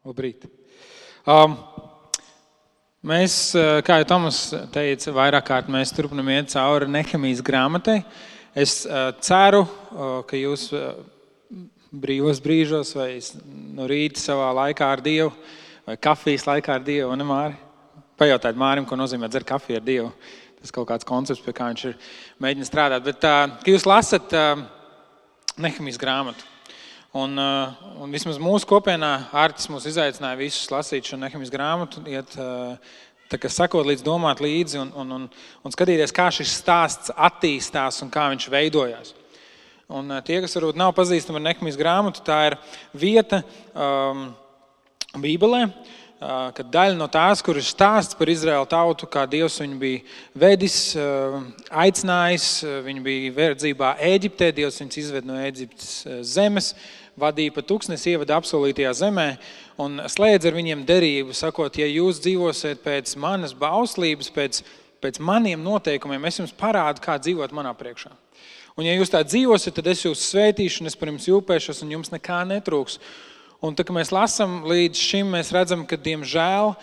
Labrīt. Mēs, kā jau Tomas teica, vairāk kārt mēs turpinam iet cauri Nehemijas grāmatai. Es ceru, ka jūs brīvos brīžos vai no rīta savā laikā ar Dievu vai kafijas laikā ar Dievu, ne Māri? Pajautājiet Mārim, ko nozīmē dzert kafiju ar Dievu. Tas kaut kāds koncepts, pie kā viņš ir mēģinājis strādāt. Bet, ka jūs lasat Nehemijas grāmatu. Un vismaz mūsu kopienā Ārtis mūs izaicināja visus lasīt šo Nehemijas grāmatu, iet tā kā sakot līdz, domāt līdzi un skatīties, kā šis stāsts attīstās un kā viņš veidojās. Un tie, kas varbūt nav pazīstami ar Nehemijas grāmatu, tā ir vieta Bībelē, kad daļa no tās, kur ir stāsts par Izraēlu tautu, kā Dievs viņu bija vedis, aicinājis, viņi bija verdzībā Ēģiptē, Dievs viņus izved no Ēģiptes zemes, vadīja pa tūkstnesi, ievada apsolītajā zemē un slēdz ar viņiem derību, sakot, ja jūs dzīvosiet pēc manas bauslības, pēc maniem noteikumiem, es jums parādu, kā dzīvot manā priekšā. Un ja jūs tā dzīvosiet, tad es jūs svētīšu un es par jums jūpēšos un jums nekā netrūks. Un tā, ka mēs lasam līdz šim, mēs redzam, ka, diemžēl,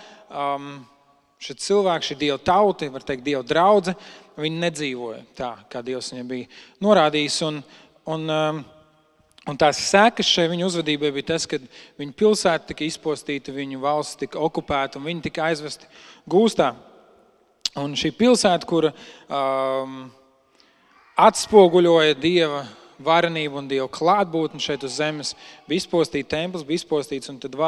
šie cilvēki, šī Dieva tauta, var teikt, Dieva draudze, viņi nedzīvoja tā, kā Dievs viņiem bija norādījis. Un tās sekas šai viņu uzvedībai bija tas, ka viņu pilsēta tika izpostīta, viņu valsts tika okupēta un viņi tika aizvesti gūstā. Un šī pilsēta, kura atspoguļoja Dieva varenību un Dieva klātbūtni šeit uz zemes, bija izpostīta, templis bija izpostīts, un tad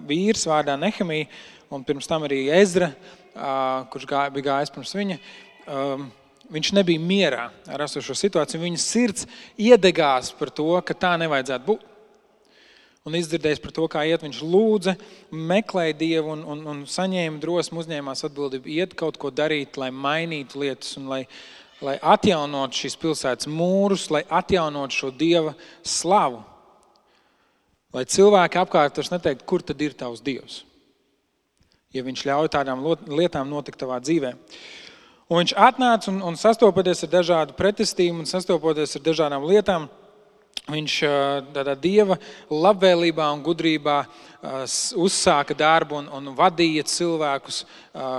vīrs vārdā Nehemija, un pirms tam arī Ezra, kurš bija gājis pirms viņa, viņš nebija mierā ar esošo situāciju. Viņa sirds iedegās par to, ka tā nevajadzētu būt. Un izdzirdējis par to, kā iet, viņš lūdza, meklēja Dievu un saņēma drosmu, uzņēmās atbildību, iet kaut ko darīt, lai mainītu lietas un lai atjaunot šīs pilsētas mūrus, lai atjaunot šo Dieva slavu. Lai cilvēki apkārt vairs neteikt, kur tad ir tavs Dievs, ja viņš ļauj tādām lietām notikt tavā dzīvē. Un viņš atnāca un sastopoties ar dažādu pretestību un sastopoties ar dažādām lietām, viņš tādā Dieva labvēlībā un gudrībā uzsāka darbu un vadīja cilvēkus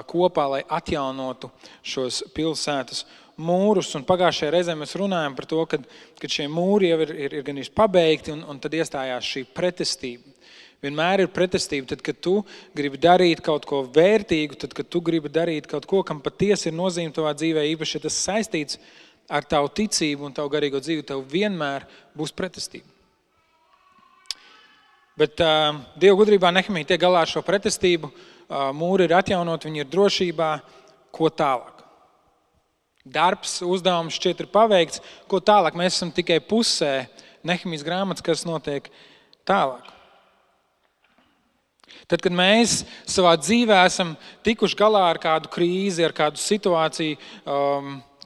kopā, lai atjaunotu šos pilsētas mūrus. Un pagājušajā reizē mēs runājam par to, ka šie mūri jau ir gan pabeigti un tad iestājās šī pretestība. Vienmēr ir pretestība, tad, kad tu gribi darīt kaut ko vērtīgu, tad, kad tu gribi darīt kaut ko, kam patiesi ir nozīme tavā dzīvē, īpaši, ja tas saistīts ar tavu ticību un tavu garīgo dzīvi, tev vienmēr būs pretestība. Bet Dieva gudrībā Nehemija tiek galā ar šo pretestību, mūri ir atjaunot, viņi ir drošībā, ko tālāk. Darbs, uzdevums šķiet ir paveikts, ko tālāk. Mēs esam tikai pusē Nehemijas grāmatas, kas notiek tālāk. Tad, kad mēs savā dzīvē esam tikuši galā ar kādu krīzi, ar kādu situāciju,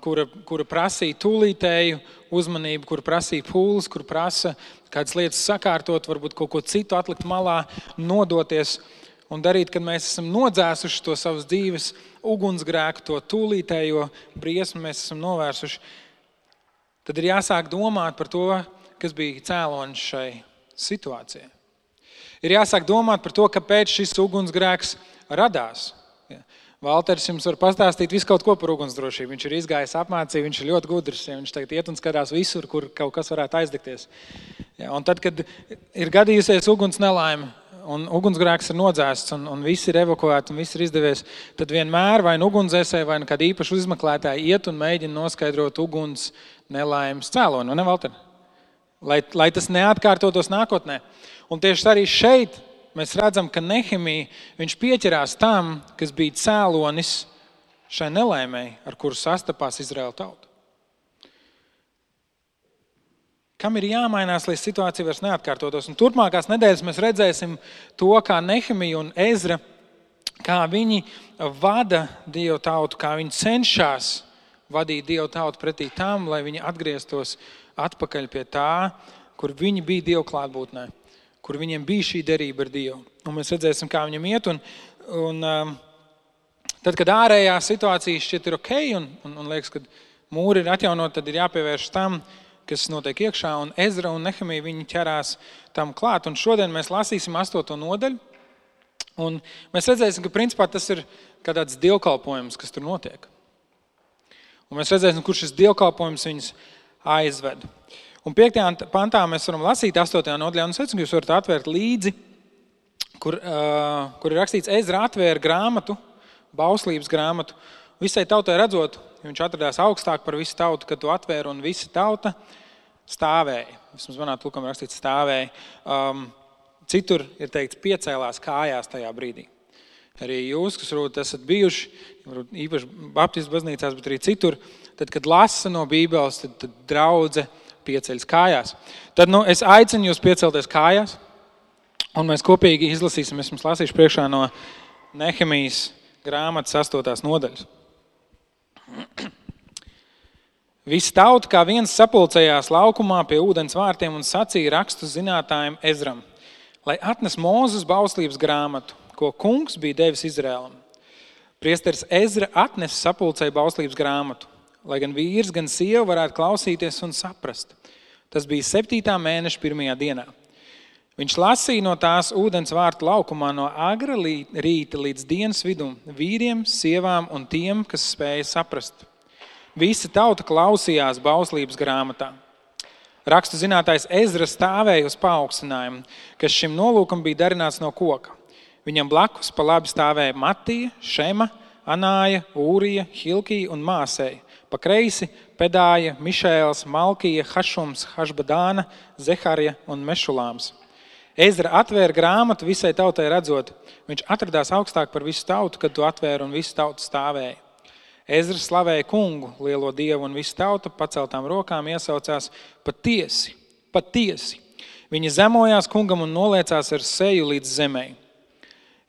kura prasīja tūlītēju uzmanību, kura prasīja pūles, kura prasa kādas lietas sakārtot, varbūt kaut ko citu atlikt malā, nodoties un darīt, kad mēs esam nodzēsuši to savas dzīves ugunsgrēku, to tūlītējo briesmu mēs esam novērsuši, tad ir jāsāk domāt par to, kas bija cēlonis šai situācijai. Ir jāsāk domāt par to, kāpēc šis ugunsgrēks radās. Valters jums var pastāstīt visu kaut ko par ugunsdrošību. Viņš ir izgājis apmācību, viņš ir ļoti gudrs. Viņš tagad iet un skatās visur, kur kaut kas varētu aizdegties. Un tad, kad ir gadījusies uguns nelaime un ugunsgrēks ir nodzēsts un viss ir evakuēti un viss ir izdevies, tad vienmēr vai ugunsdzēsēji vai kāda īpaša izmeklētāja iet un mēģina noskaidrot uguns nelaimes cēloni. Ne, Valter? Lai tas neatkārtotos nākotnē. Un tieši arī šeit mēs redzam, ka Nehemija, viņš pieķerās tam, kas bija cēlonis šai nelaimei, ar kuru sastapās Izraēla tauta. Kam ir jāmainās, lai situācija vairs neatkārtotos? Un turpmākās nedēļas mēs redzēsim to, kā Nehemija un Ezra, kā viņi vada Dievu tautu, kā viņi cenšas vadīt Dievu tautu pretī tam, lai viņi atgrieztos atpakaļ pie tā, kur viņi bija Dievu klātbūtnē, kur viņiem bija šī derība ar Dievu. Un mēs redzēsim, kā viņam iet. Un tad, kad ārējā situācija šķiet ir ok un liekas, ka mūri ir atjaunot, tad ir jāpievērš tam, kas notiek iekšā, un Ezra un Nehemija viņi ķerās tam klāt. Un šodien mēs lasīsim 8. nodaļu, un mēs redzēsim, ka principā tas ir kā tāds dievkalpojums, kas tur notiek. Un mēs redzēsim, kur šis dievkalpojums viņus aizved. Un 5. pantā mēs varam lasīt 8. nodaļā, un es aicinu, ka jūs varat atvērt līdzi, kur ir rakstīts, Ezra atvēra grāmatu, bauslības grāmatu, visai tautai redzot, viņš atradās augstāk par visu tautu, kad to atvēra, un visa tauta stāvēja. Vismaz manā tulkam rakstīts stāvēja. Citur ir teikts piecēlās kājās tajā brīdī. Arī jūs, kas varbūt esat bijuši, īpaši baptistu baznīcās, bet arī citur, tad, kad lasa no Bībeles, tad draudze pieceļas kājās. Tad es aicinu jūs piecelties kājās, un mēs kopīgi izlasīsim, es jums lasīšu priekšā no Nehemijas grāmatas 8. nodaļas. Visa tauta kā viens sapulcējās laukumā pie ūdens vārtiem un sacīja rakstu zinātājiem Ezram, lai atnes Mūzes bauslības grāmatu, ko kungs bija devis Izrēlam. Priesteris Ezra atnes sapulcēju bauslības grāmatu, lai gan vīrs, gan sieva varētu klausīties un saprast. Tas bija 7. mēneša 1. dienā. Viņš lasīja no tās ūdens vārtu laukumā no agra rīta līdz dienas vidum vīriem, sievām un tiem, kas spēja saprast. Visa tauta klausījās bauslības grāmatā. Rakstu zinātājs Ezra stāvēja uz paaugstinājumu, kas šim nolūkam bija darināts no koka. Viņam blakus pa labi stāvēja Matija, Šema, Anāja, Ūrija, Hilkija un Māsēja. Pa kreisi Pedāja, Mišēls, Malkija, Hašums, Hašbadāna, Zeharija un Mešulāms. Ezra atvēra grāmatu visai tautai redzot. Viņš atradās augstāk par visu tautu, kad to atvēra un visu tautu stāvēja. Ezra slavēja kungu, lielo dievu, un visu tautu paceltām rokām iesaucās patiesi, patiesi. Viņi zemojās kungam un noliecās ar seju līdz zemei.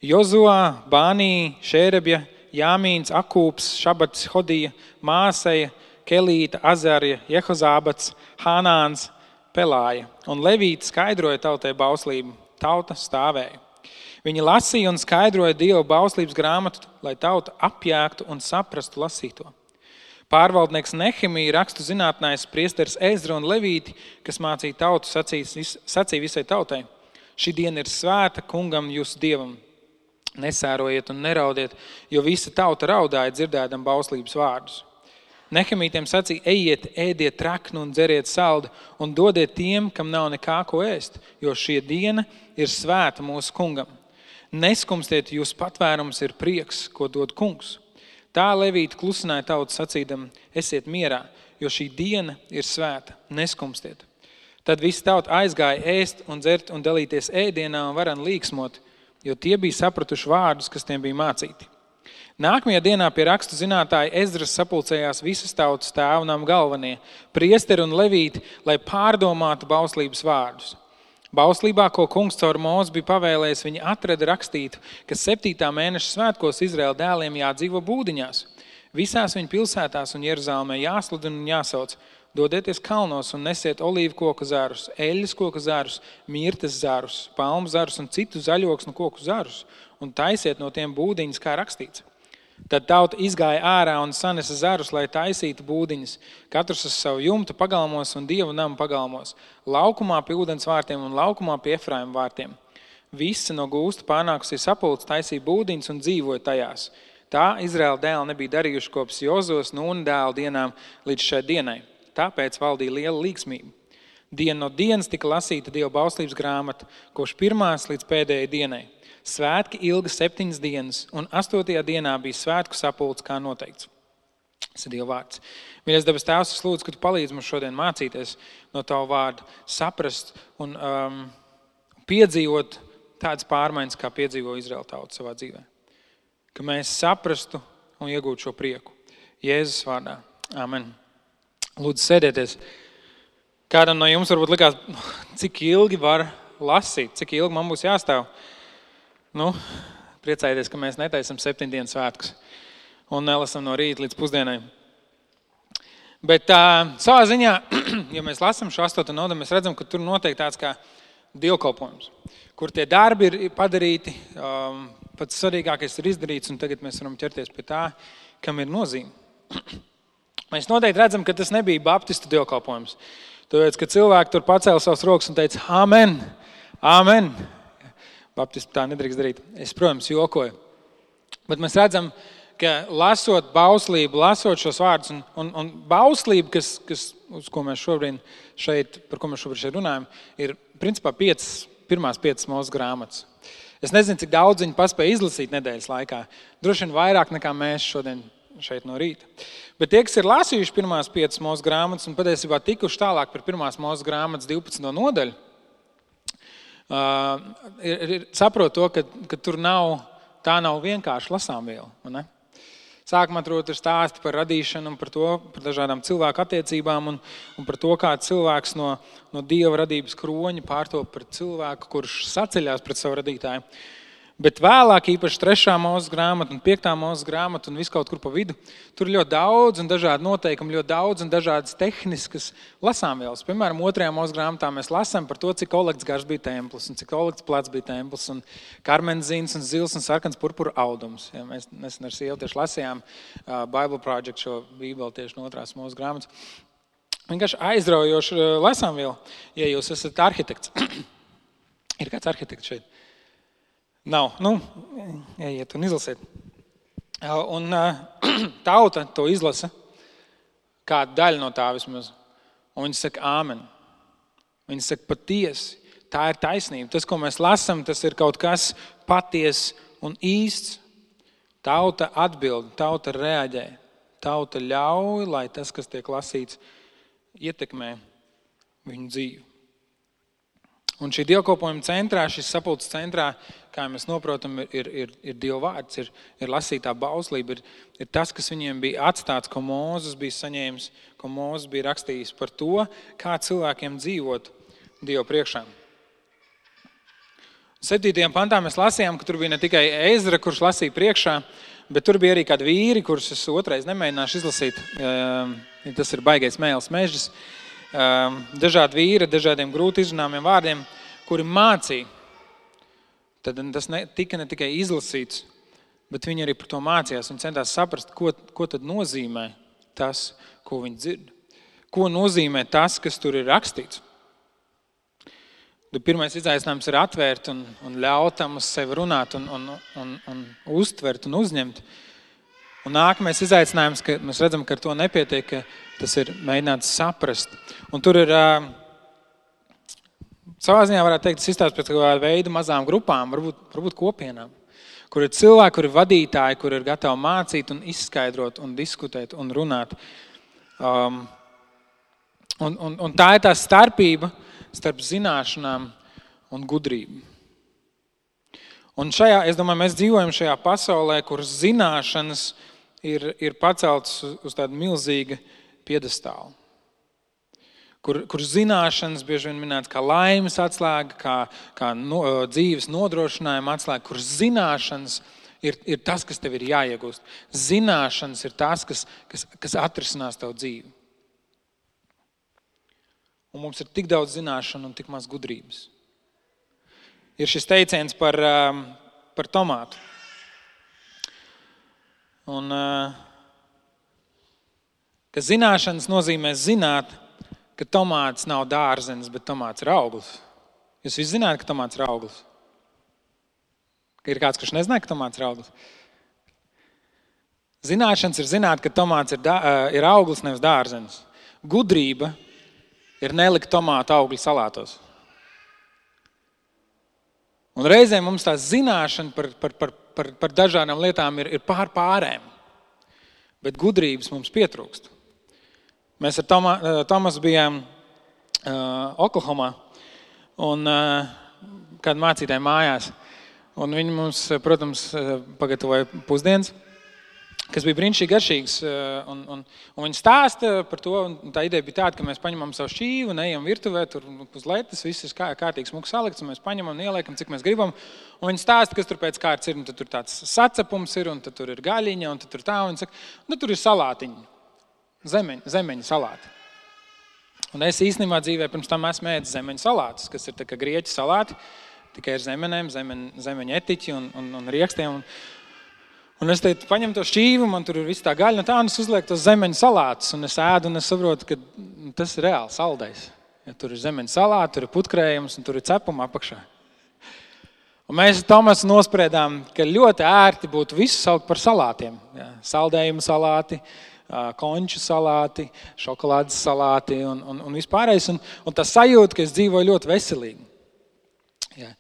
Jozuā, Bānī, Šērebja, Jāmīns, Akūps, Šabats, Hodija, Māseja, Kelīta, Azarija, Jehozābats, Hānāns, Pelāja. Un Levīti skaidroja tautai bauslību. Tauta stāvēja. Viņi lasīja un skaidroja Dieva bauslības grāmatu, lai tauta apjēgtu un saprastu lasīto. Pārvaldnieks Nehemija, rakstu zinātnājs, priesteris Ezra un Levīti, kas mācīja tautu, sacīja visai tautai. Šī diena ir svēta kungam jūsu dievam. Nesērojiet un neraudiet, jo visa tauta raudāja dzirdēdam bauslības vārdus. Nehemītiem sacīja, ejiet, ēdiet traknu un dzeriet saldu un dodiet tiem, kam nav nekā ko ēst, jo šī diena ir svēta mūsu kungam. Neskumstiet, jūs patvērums ir prieks, ko dod kungs. Tā Levīti klusināja tautu sacīdam, esiet mierā, jo šī diena ir svēta, neskumstiet. Tad visi tauta aizgāja ēst un dzert un dalīties ēdienā un varan līksmot, jo tie bija sapratuši vārdus, kas tiem bija mācīti. Nākamajā dienā pie rakstu zinātāja Ezras sapulcējās visas tautas tēvnam galvenie, priesteri un levīti, lai pārdomātu bauslības vārdus. Bauslībā, ko kungs caur Mūzi bija pavēlējis, viņi atrada rakstītu, ka 7. mēneša svētkos Izraēla dēliem jādzīvo būdiņās. Visās viņu pilsētās un Jeruzalemē jāsludina un jāsauc. Dodieties kalnos un nesiet olīvu koku zarus, eļļas koku zarus, mirtes zarus, palmu zarus un citu zaļoksnu koku zarus un taisiet no tiem būdiņas, kā rakstīts. Tad tauta izgāja ārā un sanesa zarus, lai taisītu būdiņas, katrs uz savu jumtu pagalmos un Dievu namu pagalmos, laukumā pie ūdens vārtiem un laukumā pie Efraima vārtiem. Visi no gūsta pārnākusī sapulce taisīja būdiņas un dzīvoja tajās. Tā Izraēla dēli nebija darījuši kopš Jozos Nūna dēla dienām līdz šai dienai. Tāpēc valdīja liela līgsmība. Diena no dienas tika lasīta Dieva bauslības grāmata, kopš pirmās līdz pēdējai dienai. Svētki ilga 7 dienas, un 8. dienā bija svētku sapulce, kā noteikts. Tas ir Dieva vārds. Mīļais debes Tēvs, es lūdzu, ka Tu palīdzi mums šodien mācīties no Tavu vārdu, saprast un piedzīvot tādas pārmaiņas, kā piedzīvo Izraēla tauta savā dzīvē. Ka mēs saprastu un iegūtu šo prieku. Jēzus vārdā. Amen. Lūdzu, sēdieties. Kādam no jums varbūt likās, cik ilgi var lasīt, cik ilgi man būs jāstāv. Priecājieties, ka mēs netaisam 7 dienas svētkus un nelasam no rīta līdz pusdienai. Bet savā ziņā, ja mēs lasam šo 8. nodaļu, mēs redzam, ka tur notiek tāds kā dievkalpojums, kur tie darbi ir padarīti, pats svarīgākais ir izdarīts, un tagad mēs varam ķerties pie tā, kam ir nozīme. Mēs noteikti redzam, ka tas nebija baptistu dievkalpojums. Tāpēc, ka cilvēki tur pacēla savas rokas un teica, amen, amen. Baptisti tā nedrīkst darīt. Es, protams, jokoju. Bet mēs redzam, ka lasot bauslību, lasot šos vārdus, un bauslība, uz ko mēs šobrīd par ko mēs šobrīd runājam, ir principā pirmās 5 Mūzes grāmatas. Es nezinu, cik daudz viņi paspēja izlasīt nedēļas laikā. Droši vien vairāk nekā mēs šodien šeit no rīta. Bet tie, kas ir lasījuši pirmās 5 Mūzes grāmatas un patiesībā tikuši tālāk par pirmās Mūzes grāmatas 12. nodaļu, saprot to, ka tā nav vienkārši lasāmviela. Ne? Sākumā tur ir stāsti par radīšanu un par dažādām cilvēku attiecībām un par to, kā cilvēks no Dieva radības kroņa pārtop par cilvēku, kurš saceļās pret savu radītāju. Bet vēlāk, īpaši 3. Mūzes grāmata un 5. Mūzes grāmata un viss kaut kur pa vidu, tur ir ļoti daudz un dažādi noteikumi, ļoti daudz un dažādas tehniskas lasāmvielas. Piemēram, 2. Mūzes grāmatā mēs lasām par to, cik olekts garš bija templis un cik olekts plats bija templis un karmenzīns un zils un sarkans purpura audums. Ja, mēs nesen ar sievu tieši lasījām Bible Project šo bībeli tieši no 2. Mūzes grāmatas. Vienkārši aizraujoša lasāmviela, ja jūs esat arhitekts. Ir kāds arhitekts šeit? Nav. Ejiet un izlasiet. Un tauta to izlasa, kāda daļa no tā vismaz. Un viņi saka āmen. Viņi saka patiesi. Tā ir taisnība. Tas, ko mēs lasām, tas ir kaut kas patiess un īsts. Tauta atbild, tauta reaģē. Tauta ļauj, lai tas, kas tiek lasīts, ietekmē viņu dzīvi. Un šī dievkalpojuma centrā, šis sapulces centrā, kā mēs noprotam, ir Dieva vārds, ir lasītā bauslība, ir tas, kas viņiem bija atstāts, ko Mūzes bija saņēmis, ko Mūzes bija rakstījis par to, kā cilvēkiem dzīvot Dieva priekšā. 7. pantā mēs lasījām, ka tur bija ne tikai Ezra, kurš lasīja priekšā, bet tur bija arī kādi vīri, kurus es otrais nemēģināšu izlasīt. Tas ir baigais mēls mežs. Dažādi vīri, dažādiem grūti izrunāmiem vārdiem, kuri mācīja. Tad tas tika ne tikai izlasīts, bet viņi arī par to mācījās. Viņi centās saprast, ko tad nozīmē tas, ko viņi dzird. Ko nozīmē tas, kas tur ir rakstīts. Pirmais izaicinājums ir atvērt un ļaut tam uz sevi runāt un uztvert un uzņemt. Un nākamais izaicinājums, ka mēs redzam, ka ar to nepietiek, ka tas ir mēģināts saprast. Un tur ir, savā ziņā varētu teikt, tas izstāst pēc kādā veida mazām grupām, varbūt kopienām, kur ir cilvēki, kur ir vadītāji, kur ir gatavi mācīt un izskaidrot un diskutēt un runāt. Un tā ir tā starpība starp zināšanām un gudrību. Un es domāju, mēs dzīvojam šajā pasaulē, kur zināšanas ir paceltas uz tādu milzīgu piedestālu. Kur zināšanas bieži vien minēts kā laimes atslēga, kā dzīves nodrošinājuma atslēga, kur zināšanas ir tas, kas tev ir jāiegūst. Zināšanas ir tas, kas atrisinās tavu dzīvi. Un mums ir tik daudz zināšanu un tik maz gudrības. Ir šis teiciens par tomātu. Un, ka zināšanas nozīmē zināt, ka tomāts nav dārzenis, bet tomāts ir auglis. Jūs visi zināt, ka tomāts ir auglis? Ir kāds, kurš nezināja, ka tomāts ir auglis? Zināšanas ir zināt, ka tomāts ir auglis, nevis dārzenis. Gudrība ir nelikt tomātu augļu salātos. Un reizēm mums tā zināšana par dažādām lietām ir pārēm, bet gudrības mums pietrūkst. Mēs ar Tomasu bijām Oklahomā un kādu mācītāju mājās. Un viņi mums, protams, pagatavoja pusdienas, kas bija brīnišķīgi garšīgs. Un viņi stāsta par to, un tā ideja bija tāda, ka mēs paņemam savu šķīvu un ejam virtuvē, tur uz letes, viss ir kārtīgi smuki salikts, un mēs paņemam un ieliekam, cik mēs gribam. Un viņi stāsta, kas tur pēc kārtas ir, un tad tur tāds sacepums ir, un tad tur ir gaļiņa, un tad tur tā, un viņi saka, tur ir salātiņi, zemeņu salāti. Un es īstenībā dzīvē pirms tam esmu ēdis zemeņu salātus, kas ir tā kā grieķu salāti, tikai ar zemenēm, zemeņu etiķi un riekstiem. Un es teicu, paņem to šķīvu, man tur ir viss tā gaļa, un es uzlieku tos zemeņu salātus, un es ēdu, un es saprotu, ka tas ir reāli saldais. Ja, tur ir zemeņu salāti, tur ir putkrējums un tur ir cepuma apakšā. Un mēs ar Tomasu nospriedām, ka ļoti ērti būtu visu saukt par salātiem. Ja, saldējumu salāti, konču salāti, šokolādes salāti un vispārējais. Un tas sajūta, ka es dzīvoju ļoti veselīgi. Ja.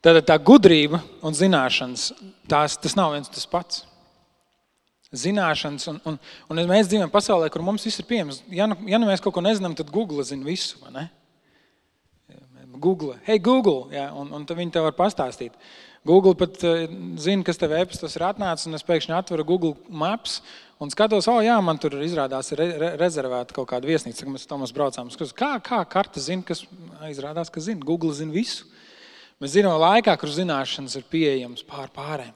Tad tā gudrība un zināšanas, tas nav viens tas pats. Zināšanas, un mēs dzīvojam pasaulē, kur mums viss ir pieejams. Ja nu mēs kaut ko nezinām, tad Google zina visu, vai ne? Google, hey Google, ja, un tad viņi tev var pastāstīt. Google pat zina, kas tev e-pastos ir atnācis, un es pēkšņi atveru Google Maps un skatos, jā, man tur izrādās rezervēta kaut kāda viesnīca, mēs Tomas braucām. Kā karta zina, kas izrādās, ka zina? Google zina visu. Mēs zinām laikā, kur zināšanas ir pieejams pārējiem.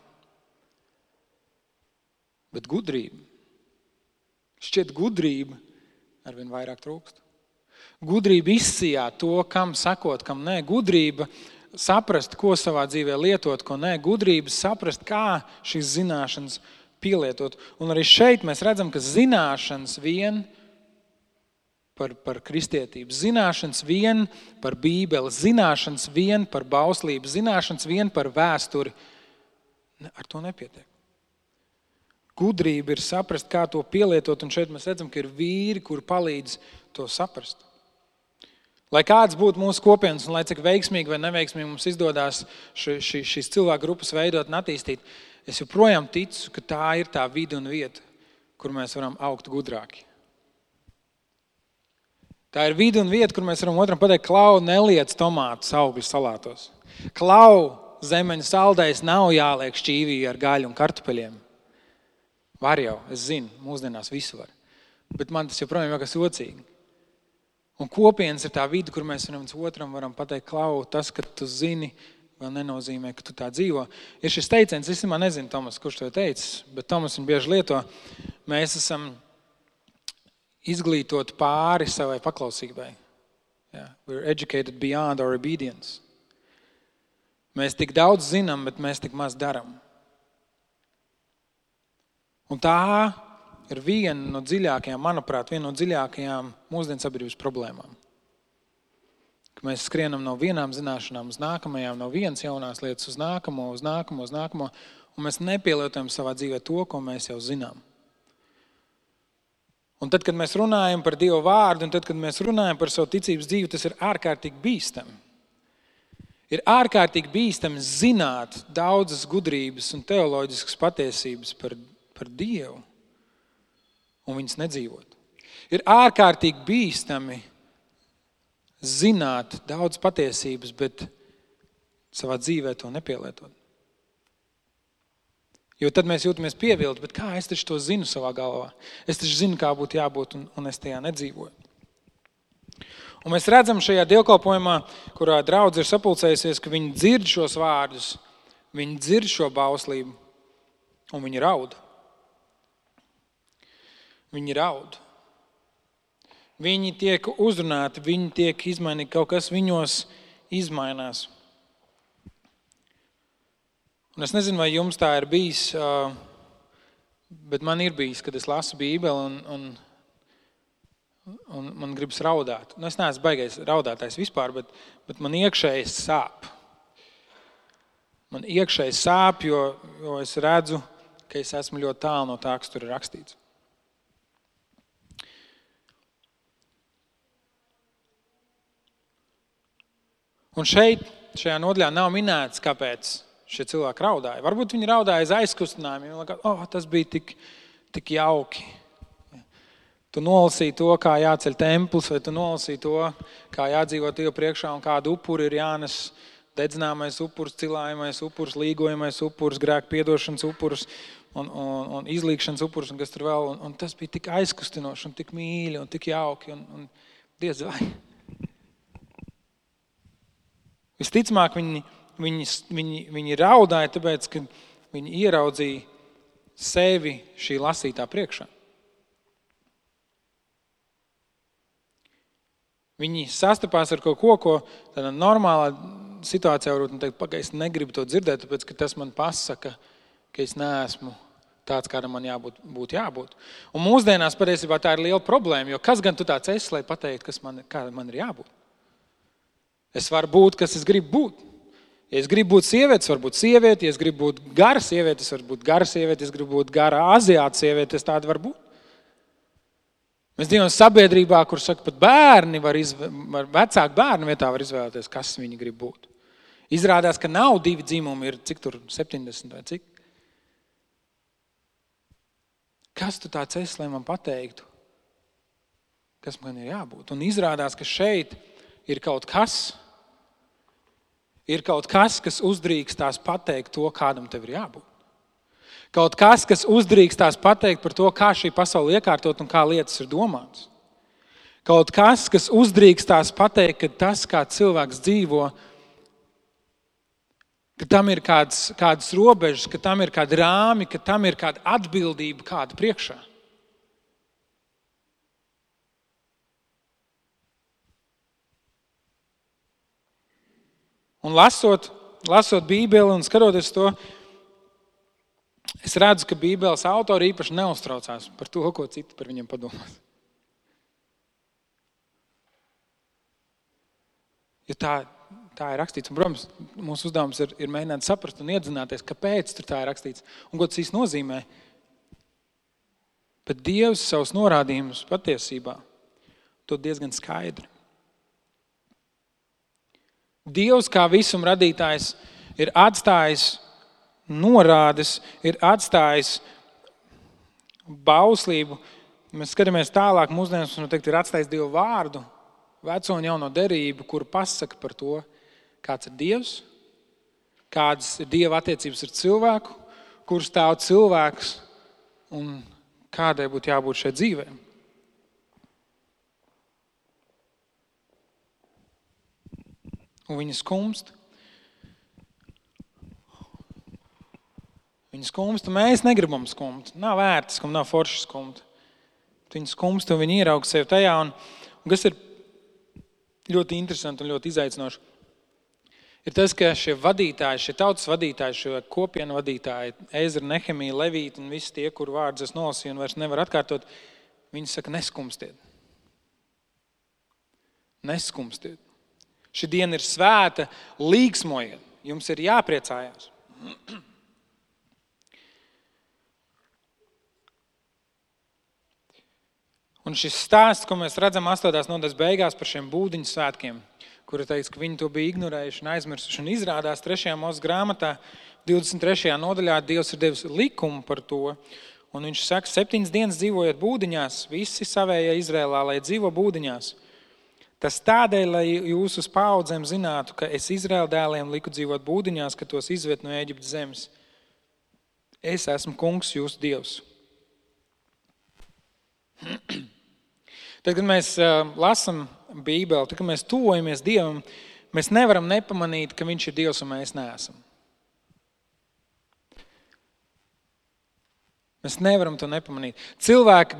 Bet gudrība, šķiet gudrība arvien vairāk trūkst. Gudrība izsijāt to, kam sakot, kam nē. Gudrība saprast, ko savā dzīvē lietot, ko nē. Gudrība saprast, kā šīs zināšanas pielietot. Un arī šeit mēs redzam, ka zināšanas vien par kristietību, zināšanas vien par Bībeli, zināšanas vien par bauslību, zināšanas vien par vēsturi. Ar to nepietiek. Gudrība ir saprast, kā to pielietot, un šeit mēs redzam, ka ir vīri, kuri palīdz to saprast. Lai kāds būtu mūsu kopienas, un lai cik veiksmīgi vai neveiksmīgi mums izdodās šīs cilvēku grupas veidot un attīstīt, es joprojām ticu, ka tā ir tā vide un vieta, kur mēs varam augt gudrāki. Tā ir vide un vieta, kur mēs varam otram pateikt, Klau, neliec tomātus augļus salātos. Klau, zemeņu saldējs nav jāliek šķīvī ar gaļu un kartupeļiem. Var jau, es zinu, mūsdienās visu var. Bet man tas joprojām jākas ocīgi. Un kopienas ir tā vide, kur mēs viens otram varam pateikt, Klau, tas, ka tu zini, vēl nenozīmē, ka tu tā dzīvo. Ir šis teiciens, es nezinu, Tomas, kurš to teicis, bet Tomas viņu bieži lieto. Mēs esam izglītot pāri savai paklausībai. Yeah. We're educated beyond our obedience. Mēs tik daudz zinām, bet mēs tik maz daram. Un tā ir viena no dziļākajām, manuprāt, viena no dziļākajām mūsdienu sabiedrības problēmām. Ka mēs skrienam no vienām zināšanām uz nākamajām, no vienas jaunās lietas uz nākamo, un mēs nepielietojam savā dzīvē to, ko mēs jau zinām. Un tad, kad mēs runājam par Dievu vārdu, un tad, kad mēs runājam par savu ticības dzīvi, tas ir ārkārtīgi bīstami. Ir ārkārtīgi bīstami zināt daudzas gudrības un teoloģiskas patiesības par Dievu un viņas nedzīvot. Ir ārkārtīgi bīstami zināt daudz patiesības, bet savā dzīvē to nepielietot. Jo tad mēs jūtamies pievilti, bet kā es taču to zinu savā galvā? Es taču zinu, kā būtu jābūt, un es tajā nedzīvoju. Un mēs redzam šajā dievkalpojumā, kurā draudze ir sapulcējusies, ka viņi dzird šos vārdus, viņi dzird šo bauslību, un viņi raud. Viņi raud. Viņi tiek uzrunāti, viņi tiek izmainīti, kaut kas viņos izmainās. Un es nezinu, vai jums tā ir bijis, bet man ir bijis, kad es lasu Bībeli un man gribas raudāt. Es neesmu baigais raudātājs vispār, bet man iekšēji sāp. Man iekšēji sāp, jo es redzu, ka es esmu ļoti tālu no tā, kas tur ir rakstīts. Un šajā nodaļā nav minēts, kāpēc šie cilvēki raudāja. Varbūt viņi raudāja aiz aizkustinājumiem. Viņi likās, tas bija tik jauki. Tu nolasīji to, kā jāceļ templis, vai tu nolasīji to, kā jādzīvo Dievu priekšā un kādu upuri ir jānes dedzināmais upurs, cilājamais upurs, līgojamais upurs, grēku piedošanas upurs un izlīgšanas upurs un kas tur vēl. Un tas bija tik aizkustinoši un tik mīļi un tik jauki. Un Dievs vai. Visticamāk, viņi raudāja, tāpēc, ka viņi ieraudzīja sevi šī lasītā priekšā. Viņi sastapās ar kaut ko tādā normālā situācijā varbūt teikt, es negribu to dzirdēt, tāpēc, ka tas man pasaka, ka es neesmu tāds, kādam man jābūt. Un mūsdienās patiesībā tā ir liela problēma, jo kas gan tu tāds esi, lai pateiktu, kāda man ir jābūt? Es varu būt, kas es gribu būt. Ja es gribu būt sieviete, es varu būt sieviete. Ja es gribu būt gara sieviete, es varu būt gara sieviete. Ja es gribu būt gara aziāta sieviete, es tāda varu būt. Mēs dzīvojam sabiedrībā, kur saka, pat bērni vecāki bērni vietā var izvēlēties, kas viņi grib būt. Izrādās, ka nav 2 dzimumi, ir cik tur 70 vai cik. Kas tu tāds esi, lai man pateiktu, kas man ir jābūt? Un izrādās, ka šeit ir kaut kas, kas uzdrīkstās pateikt to, kādam tev ir jābūt. Kaut kas, kas uzdrīkstās pateikt par to, kā šī pasaule iekārtot un kā lietas ir domātas. Kaut kas, kas uzdrīkstās pateikt, ka tas, kā cilvēks dzīvo, ka tam ir kādas robežas, ka tam ir kādi rāmi, ka tam ir kāda atbildība kāda priekšā. Un lasot Bībeli un skatoties to, es redzu, ka Bībeles autori īpaši neuztraucās par to, ko citi par viņiem padomās. Jo tā ir rakstīts. Un, protams, mūsu uzdevums ir mēģināt saprast un iedzināties, kāpēc tur tā ir rakstīts un ko tas īsti nozīmē. Bet Dievs savus norādījumus patiesībā dod diezgan skaidri. Dievs kā visuma radītājs ir atstājis norādes, ir atstājis bauslību. Mēs skatāmies tālāk, mūsdienās ir atstājis Dievu vārdu, veco un jauno derību, kur pasaka par to, kāds ir Dievs, kādas ir Dieva attiecības ar cilvēku, kur stāv cilvēks un kādai būtu jābūt šai dzīvē. Un viņi skumst. Viņi skumst, un mēs negribam skumt. Nav vērts skumt, nav forši skumt. Viņi skumst, un viņi ierauga sevi tajā. Un kas ir ļoti interesanti un ļoti izaicinoši, ir tas, ka šie vadītāji, šie tautas vadītāji, šie kopienu vadītāji, Ezra, Nehemija, Levīti un visi tie, kur vārdus es nolasīju un vairs nevar atkārtot, viņi saka, neskumstiet. Neskumstiet. Šī diena ir svēta, līgsmojiet. Jums ir jāpriecājās. Un šis stāsts, ko mēs redzam 8. nodaļas beigās par šiem būdiņu svētkiem, kura teica, ka viņi to bija ignorējuši un aizmirsuši. Un izrādās 3. Mūzes grāmatā, 23. nodaļā, Dievs ir devis likumu par to. Un viņš saka, 7 dienas dzīvojot būdiņās, visi savējie Izrēlā, lai dzīvo būdiņās. Tas tādēļ, lai jūs uz paudzēm zinātu, ka es Izraēla dēliem liku dzīvot būdiņās, ka tos izved no Ēģiptes zemes. Es esmu kungs, jūsu Dievs. Tad, kad mēs lasam Bībeli, tad, kad mēs tuvojamies Dievam, mēs nevaram nepamanīt, ka viņš ir Dievs un mēs neesam. Mēs nevaram to nepamanīt. Cilvēka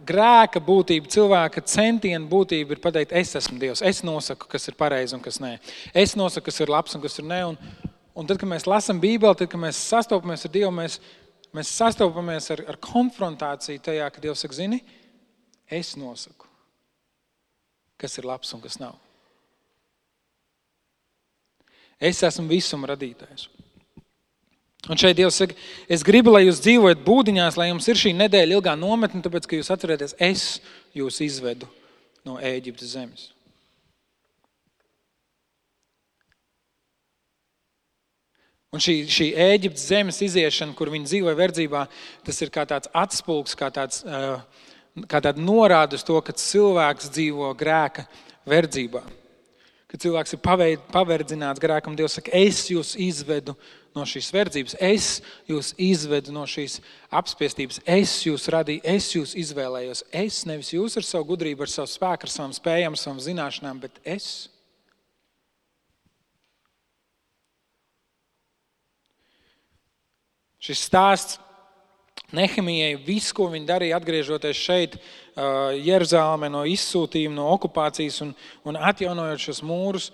grēka būtība, cilvēka centiena būtība ir pateikt, es esmu Dievs, es nosaku, kas ir pareizi un kas nē. Es nosaku, kas ir labs un kas ir nē. Un tad, kad mēs lasam Bībeli, tad, kad mēs sastopamies ar Dievu, mēs sastopamies ar konfrontāciju tajā, ka Dievs saka, zini, es nosaku, kas ir labs un kas nav. Es esmu visuma radītājs. Un šeit Dievs saka, es gribu, lai jūs dzīvojat būdiņās, lai jums ir šī nedēļa ilgā nometne, tāpēc, ka jūs atcerieties, es jūs izvedu no Ēģiptes zemes. Un šī Ēģiptes zemes iziešana, kur viņi dzīvoja verdzībā, tas ir kā tāds atspulgs, kā tāda norāda uz to, ka cilvēks dzīvo grēka verdzībā. Kad cilvēks ir paverdzināts grēkam, Dievs saka, es jūs izvedu no šīs verdzības, es jūs izvedu no šīs apspiestības, es jūs radīju, es jūs izvēlējos. Es, nevis jūs ar savu gudrību, ar savu spēku, ar savām spējām, ar savām zināšanām, bet es. Šis stāsts Nehemijai, viss, ko viņi darīja, atgriežoties šeit, Jeruzālēmē no izsūtījuma, no okupācijas un atjaunojot šos mūrus,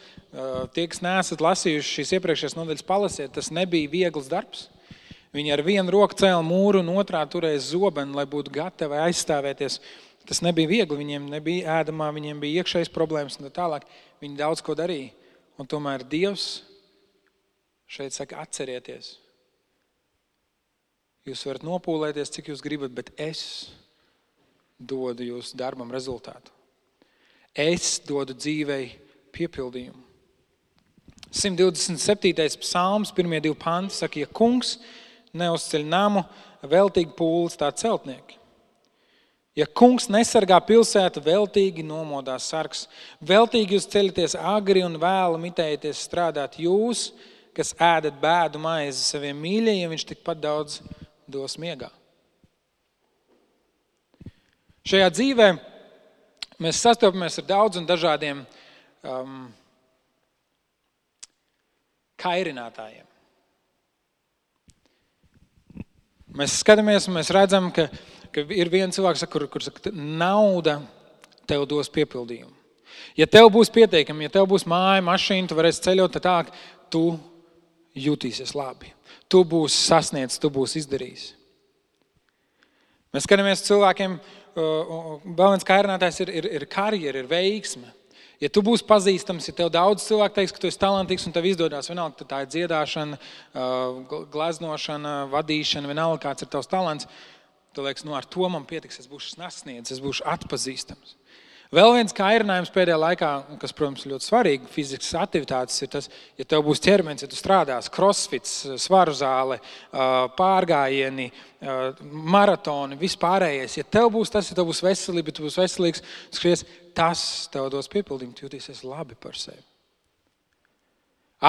tie, kas neesat lasījuši šīs iepriekšējās nodaļas, palasiet, tas nebija viegls darbs. Viņi ar vienu roku cēla mūru un otrā turēja zobenu, lai būtu gatavi aizstāvēties. Tas nebija viegli, viņiem nebija ēdamā, viņiem bija iekšējas problēmas un tā tālāk. Viņi daudz ko darīja. Un tomēr Dievs šeit saka, atcerieties. Jūs varat nopūlēties, cik jūs gribat, bet es dodu jūsu darbam rezultātu. Es dodu dzīvei piepildījumu. 127. psalms, 1. 2 panti saka, ja kungs neuzceļ namu, veltīgi pūles tā celtnieki. Ja kungs nesargā pilsētu, veltīgi nomodās sargs. Veltīgi jūs ceļaties agri un vēlu mitējaties strādāt. Jūs, kas ēdat bēdu maizi saviem mīļajiem, viņš tikpat daudz dos miegā. Šajā dzīvē mēs sastopamies ar daudz un dažādiem kairinātājiem. Mēs skatāmies un mēs redzam, ka ir viens cilvēks, kur saka, nauda tev dos piepildījumu. Ja tev būs pietiekami, ja tev būs māja, mašīna, tu varēsi ceļot tā, tu jutīsies labi. Tu būsi sasniedzis, tu būsi izdarījis. Mēs skatāmies cilvēkiem, vēl viens kairinātājs ir karjera, ir veiksme. Ja tu būsi pazīstams, ja tev daudz cilvēku teiks, ka tu esi talantīgs un tev izdodās, vienalga, tā ir dziedāšana, gleznošana, vadīšana, vienalga, kāds ir tavs talants, tu liekas, ar to man pietiks, es būšu sasniedzis, es būšu atpazīstams. Vēl viens kairinājums pēdējā laikā, kas, protams, ļoti svarīgi, fizikas aktivitātes, ir tas, ja tev būs ķermenis, ja tu strādās, crossfits, svaru zāle, pārgājieni, maratoni, vispārējais. Ja tev būs tas, ja tev būs veselība, ja tu būs veselīgs, skries, tas tev dos piepildījumu, tu jūtīsies labi par sevi.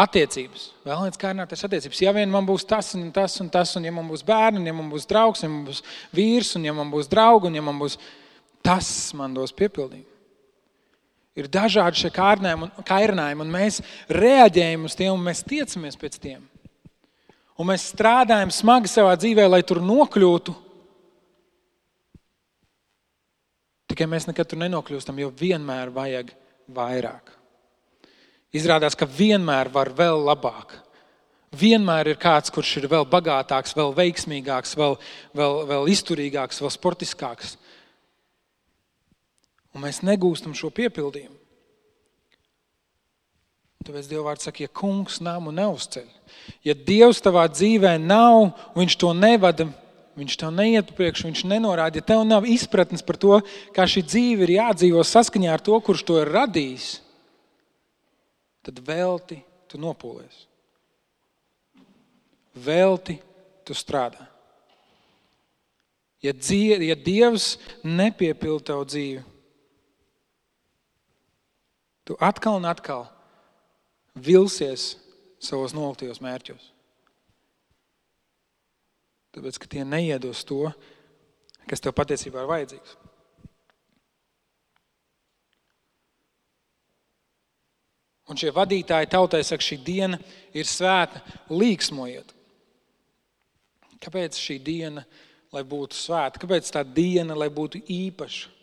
Attiecības. Vēl viens kairinājums attiecības. Ja vien man būs tas un tas un tas, un ja man būs bērni, un ja man būs draugs, ja man būs vīrs, un ja man būs draugi, un ja man būs tas, man dos piepildījumu. Ir dažādi šie kairinājumi, un mēs reaģējam uz tiem, un mēs tiecamies pēc tiem. Un mēs strādājam smagi savā dzīvē, lai tur nokļūtu. Tikai mēs nekad tur nenokļūstam, jo vienmēr vajag vairāk. Izrādās, ka vienmēr var vēl labāk. Vienmēr ir kāds, kurš ir vēl bagātāks, vēl veiksmīgāks, vēl izturīgāks, vēl sportiskāks. Un mēs negūstam šo piepildījumu. Tāpēc Dieva vārds saka, ja kungs namu neuzceļ, ja Dievs tavā dzīvē nav, viņš to nevada, viņš tev neiet priekš, viņš nenorāda, ja tev nav izpratnes par to, kā šī dzīve ir jādzīvo saskaņā ar to, kurš to ir radījis, tad velti tu nopūlies. Velti tu strādā. Ja Dievs nepiepilda tavu dzīvi, tu atkal un atkal vilsies savos noliktajos mērķos. Tāpēc, ka tie neiedos to, kas tev patiesībā ir vajadzīgs. Un šie vadītāji tautai saka, šī diena ir svēta, līksmojiet. Kāpēc šī diena, lai būtu svēta? Kāpēc tā diena, lai būtu īpaša?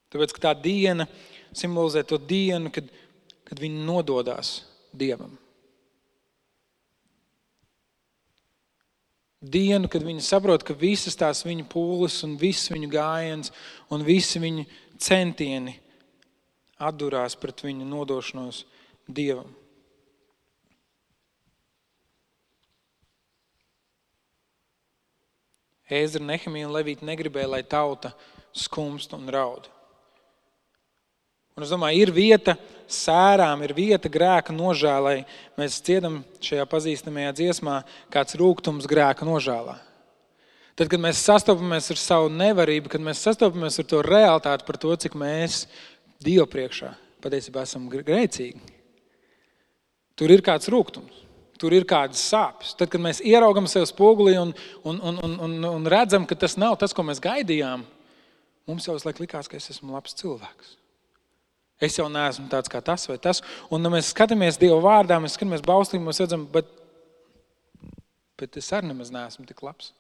Tāpēc, ka tā diena simbolizē to dienu, kad viņi nododās Dievam. Dienu, kad viņi saprot, ka visas tās viņu pūles un viss viņu gājiens un visi viņu centieni atdurās pret viņu nodošanos Dievam. Ēzra, Nehemija un Levīti negribēja, lai tauta skumst un raud. Un es domāju, ir vieta sērām, ir vieta grēka nožēlai. Mēs dziedam šajā pazīstamajā dziesmā kāds rūgtums grēka nožēlā. Tad, kad mēs sastopamies ar savu nevarību, kad mēs sastopamies ar to realitāti par to, cik mēs Dievu priekšā patiesībā esam grēcīgi, tur ir kāds rūgtums, tur ir kādas sāpes. Tad, kad mēs ieraugam sev spogulī un redzam, ka tas nav tas, ko mēs gaidījām, mums jau uzlaik likās, ka es esmu labs cilvēks. Es jau neesmu tāds kā tas vai tas. Un mēs skatāmies Dieva vārdā, mēs skatāmies bauslī, mēs redzam, bet es arī nemaz neesmu tik labs.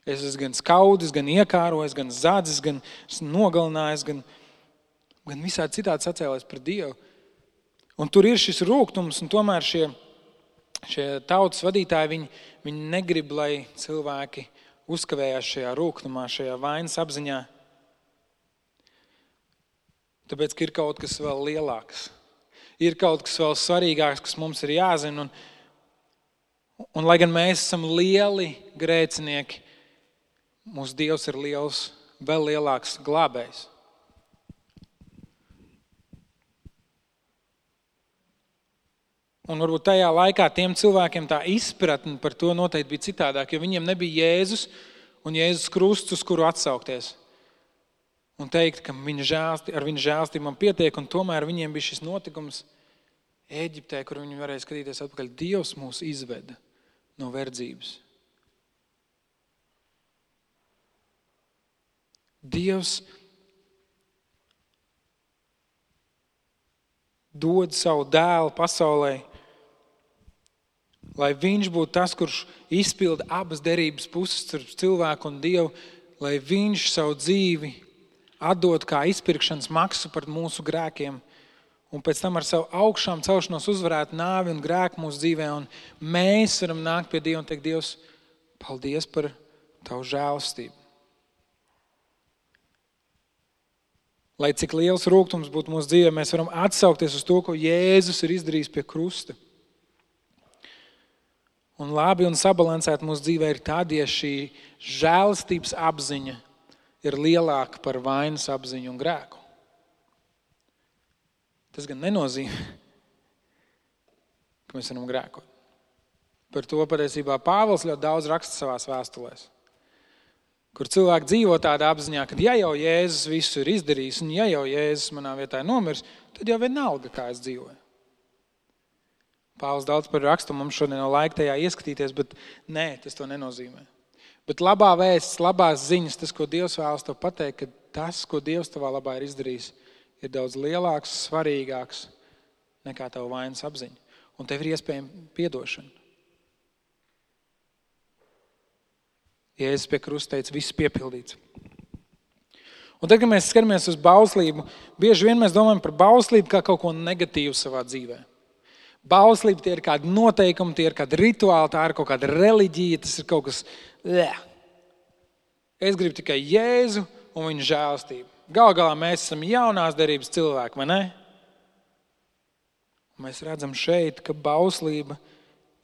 Es esmu gan skaudis, gan iekārojis, gan zadzis, gan nogalinājis, gan visādi citādi sacēlēs pret Dievu. Un tur ir šis rūgtums, un tomēr šie tautas vadītāji, viņi negrib, lai cilvēki uzkavējās šajā rūgtumā, šajā vainas apziņā. Tāpēc, ka ir kaut kas vēl lielāks. Ir kaut kas vēl svarīgāks, kas mums ir jāzina. Un lai gan mēs esam lieli grēcinieki, mūsu Dievs ir liels, vēl lielāks glābējs. Un varbūt tajā laikā tiem cilvēkiem tā izpratne par to noteikti bija citādāk, jo viņiem nebija Jēzus un Jēzus krusts, uz kuru atsaukties. Un teikt, ka ar viņa žēlstību man pietiek, un tomēr viņiem bija šis notikums Ēģiptē, kur viņi varēja skatīties atpakaļ. Dievs mūs izveda no verdzības. Dievs dod savu dēlu pasaulē, lai viņš būtu tas, kurš izpilda abas derības puses starp cilvēku un Dievu, lai viņš savu dzīvi atdod kā izpirkšanas maksu par mūsu grēkiem, un pēc tam ar savu augšām celšanos uzvarētu nāvi un grēku mūsu dzīvē, un mēs varam nākt pie Dieva un teikt, Dievs, paldies par tavu žēlastību. Lai cik liels rūgtums būtu mūsu dzīvē, mēs varam atsaukties uz to, ko Jēzus ir izdarījis pie krusta. Un labi un sabalansēt mūsu dzīvē ir tad, ja šī žēlastības apziņa ir lielāka par vainas apziņu un grēku. Tas gan nenozīmē, ka mēs varam grēkot. Par to patiesībā Pāvils ļoti daudz raksta savās vēstulēs, kur cilvēki dzīvo tādā apziņā, ka ja jau Jēzus visu ir izdarījis, un ja jau Jēzus manā vietā ir nomiris, tad jau vienalga, kā es dzīvoju. Pāvils daudz par rakstu, mums šodien nav laika tajā ieskatīties, bet nē, tas to nenozīmē. Bet labā vēsts, labās ziņas, tas, ko Dievs vēlas tev pateikt, ka tas, ko Dievs tavā labā ir izdarījis, ir daudz lielāks, svarīgāks nekā tava vainas apziņa. Un tev ir iespējama piedošana. Jēzus pie krusta teica, viss piepildīts. Un tad, kad mēs skatāmies uz bauslību, bieži vien mēs domājam par bauslību kā kaut ko negatīvu savā dzīvē. Bauslība tie ir kādi noteikumi, tie ir kādi rituāli, tā ir kaut kāda reliģija, tas ir kaut kas. Es gribu tikai Jēzu un viņa žēlastību. Galu galā mēs esam jaunās derības cilvēki, vai ne? Un mēs redzam šeit, ka bauslība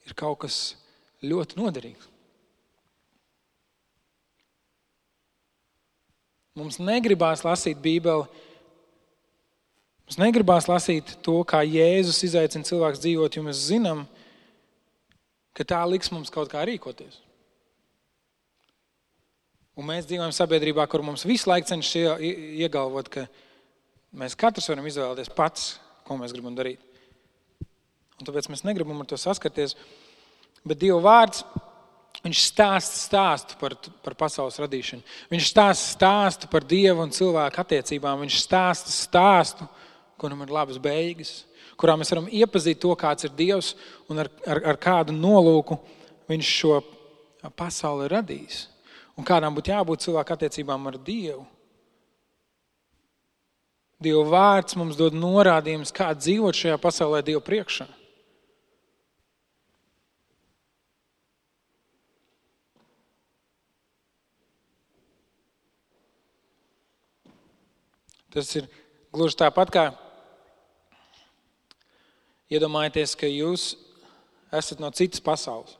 ir kaut kas ļoti noderīgs. Mums negribās lasīt Bībeli. Mums negribās lasīt to, kā Jēzus izaicina cilvēks dzīvot, jo mēs zinām, ka tā liks mums kaut kā rīkoties. Un mēs dzīvojam sabiedrībā, kur mums visu laiku cenšas iegalvot, ka mēs katrs varam izvēlēties pats, ko mēs gribam darīt. Un tāpēc mēs negribam ar to saskarties. Bet Dieva vārds, viņš stāstu par pasaules radīšanu. Viņš stāstu par Dievu un cilvēku attiecībām. Viņš stāstu, kuram ir labas beigas, kurā mēs varam iepazīt to, kāds ir Dievs un ar kādu nolūku viņš šo pasauli ir radījis. Un kādām būtu jābūt cilvēku attiecībām ar Dievu. Dieva vārds mums dod norādījumus, kā dzīvot šajā pasaulē Dievu priekšā. Tas ir gluži tāpat kā iedomājieties, ka jūs esat no citas pasaules.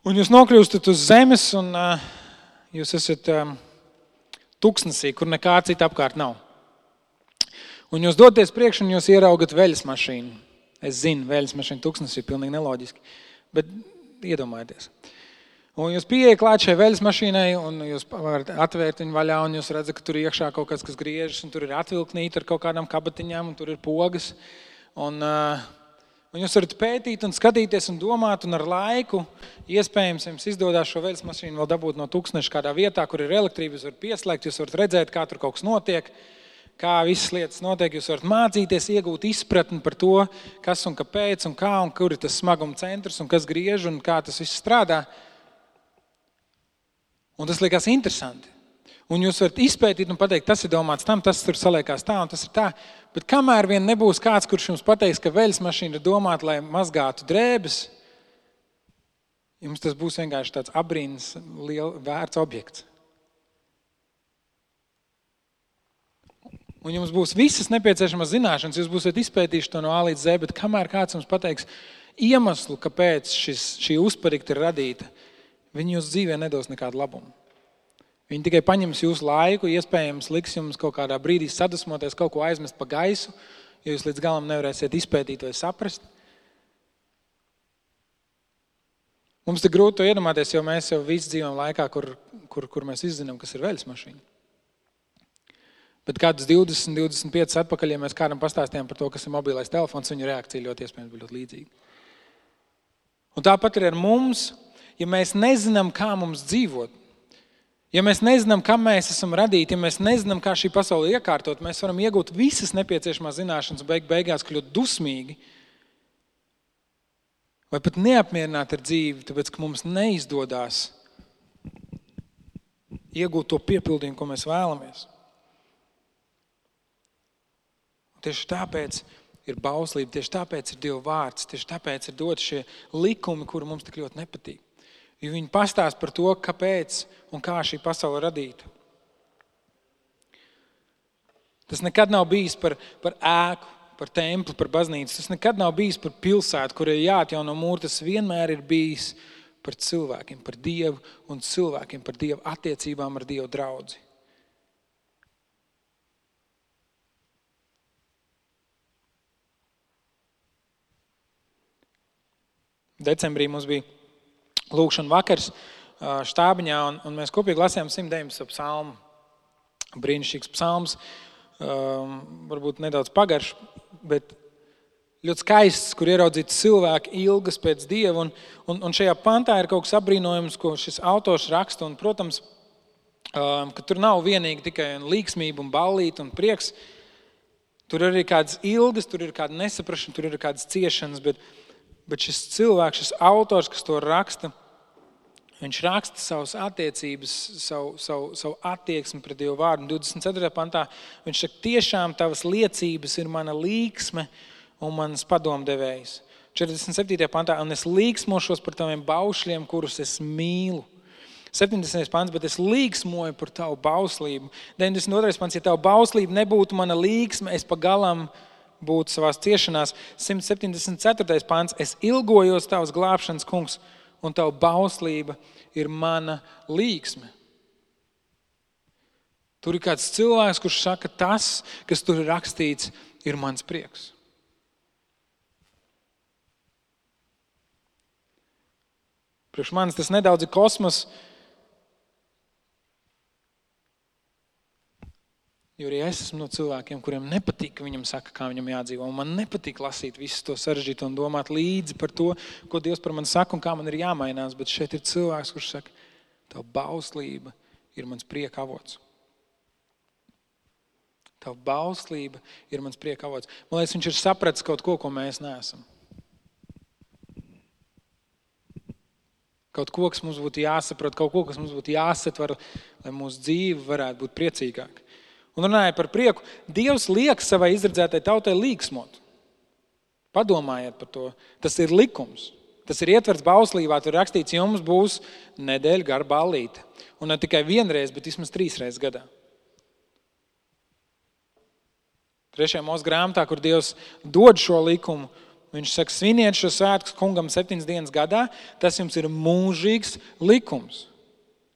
Un jūs nokļūstat uz zemes un jūs esat tuksnesī, kur nekā cita apkārt nav. Un jūs doties priekš un jūs ieraugat veļas mašīnu. Es zinu, veļas mašīna tuksnesī ir pilnīgi neloģiski, bet iedomājieties. Un jūs pieejat klāt šai veļas mašīnai un jūs varat atvērt viņu vaļā un jūs redzat, ka tur iekšā kaut kas griežas un tur ir atvilknīti ar kaut kādām kabatiņām un tur ir pogas. Un jūs varat pētīt un skatīties un domāt, un ar laiku iespējams jums izdodās šo veļas mašīnu vēl dabūt no tūkstneša kādā vietā, kur ir elektrība, jūs varat pieslēgt, jūs varat redzēt, kā tur kaut kas notiek, kā visas lietas notiek, jūs varat mācīties, iegūt izpratni par to, kas un kāpēc un kā un kur ir tas smaguma centrs un kas griež un kā tas viss strādā. Un tas liekas interesanti. Un jūs varat izpētīt un pateikt, tas ir domāts tam, tas tur saliekās tā un tas ir tā. Bet kamēr vien nebūs kāds, kurš jums pateiks, ka veļas mašīna ir domāta, lai mazgātu drēbes, jums tas būs vienkārši tāds abrīnas vērts objekts. Un jums būs visas nepieciešamās zināšanas, jūs būsiet izpētījuši to no A līdz Z, bet kamēr kāds jums pateiks iemeslu, kāpēc šī uzparikta ir radīta, viņi jūs dzīvē nedos nekādu labumu. Viņi tikai paņems jūsu laiku, iespējams liks jums kaut kādā brīdī sadusmoties, kaut ko aizmest pa gaisu, jo jūs līdz galam nevarēsiet izpētīt vai saprast. Mums ir grūti to iedomāties, jo mēs jau visi dzīvojam laikā, kur mēs izzinām, kas ir veļas mašīna. Bet kādus 20, 25 atpakaļ, ja mēs kādam pastāstījām par to, kas ir mobilais telefons, viņa reakcija ļoti iespējams bija ļoti līdzīga. Un tāpat ir ar mums, ja mēs nezinām, kā mums dzīvot, ja mēs nezinām, kam mēs esam radīti, ja mēs nezinām, kā šī pasaule iekārtot, mēs varam iegūt visas nepieciešamās zināšanas un beigās kļūt dusmīgi vai pat neapmierināti ar dzīvi, tāpēc, ka mums neizdodās iegūt to piepildījumu, ko mēs vēlamies. Un tieši tāpēc ir bauslība, tieši tāpēc ir Dieva vārds, tieši tāpēc ir dot šie likumi, kuri mums tik ļoti nepatīk. Jo viņi pastāst par to, kāpēc un kā šī pasaule radīta. Tas nekad nav bijis par ēku, par templi, par baznīcu. Tas nekad nav bijis par pilsētu, kur ir jāatjauno mūri. Tas vienmēr ir bijis par cilvēkiem, par Dievu un cilvēkiem, par Dievu attiecībām ar Dievu draudzi. Decembrī mums bija lūkšana vakars štābiņā, un mēs kopīgi lasījām 119. psalmu. Brīnišķīgs psalms, varbūt nedaudz pagarš, bet ļoti skaists, kur ieraudzīt cilvēku ilgas pēc Dieva. Un šajā pantā ir kaut kas apbrīnojams, ko šis autors raksta. Un, protams, ka tur nav vienīgi tikai līksmība un ballīte un prieks. Tur ir arī kādas ilgas, tur ir kāda nesaprašana, tur ir kādas ciešanas, bet šis cilvēks, šis autors, kas to raksta, viņš raksta savas attiecības, savu attieksmi pret Dievu vārdu. 24. pantā viņš saka, tiešām tavas liecības ir mana līksme un manas padomdevējs. 47. pantā, un es līksmošos par taviem baušļiem, kurus es mīlu. 70. pants, bet es līksmoju par tavu bauslību. 92. pants, ja tavu bauslību nebūtu mana līksme, es pa galam būtu savās ciešanās. 174. pants, es ilgojos tavas glābšanas, kungs, un tavu bauslība ir mana līksme. Tur ir kāds cilvēks, kurš saka, tas, kas tur ir rakstīts, ir mans prieks. Priekš manis tas nedaudz ir kosmos, jo arī es esmu no cilvēkiem, kuriem nepatīk, ka viņam saka, kā viņam jādzīvo. Un man nepatīk lasīt visu to sarežģīto un domāt līdzi par to, ko Dievs par mani saka un kā man ir jāmainās. Bet šeit ir cilvēks, kurš saka, tava bauslība ir mans prieka avots. Tava bauslība ir mans prieka avots. Man liekas, viņš ir sapratis kaut ko mēs neesam. Kaut ko, kas mums būtu jāsaprot, kaut ko, kas mums būtu jāsatver, lai mūsu dzīve varētu būt priecīgāka. Un runāja par prieku, Dievs liek savai izredzētai tautai līksmot. Padomājiet par to. Tas ir likums. Tas ir ietverts bauslībā, tur rakstīts, jums būs nedēļa gara ballīte. Un ne tikai vienreiz, bet vismaz 3 reizes gadā. 3. Mūsu grāmatā, kur Dievs dod šo likumu, viņš saka, sviniet šo svētkus kungam 7 dienas gadā, tas jums ir mūžīgs likums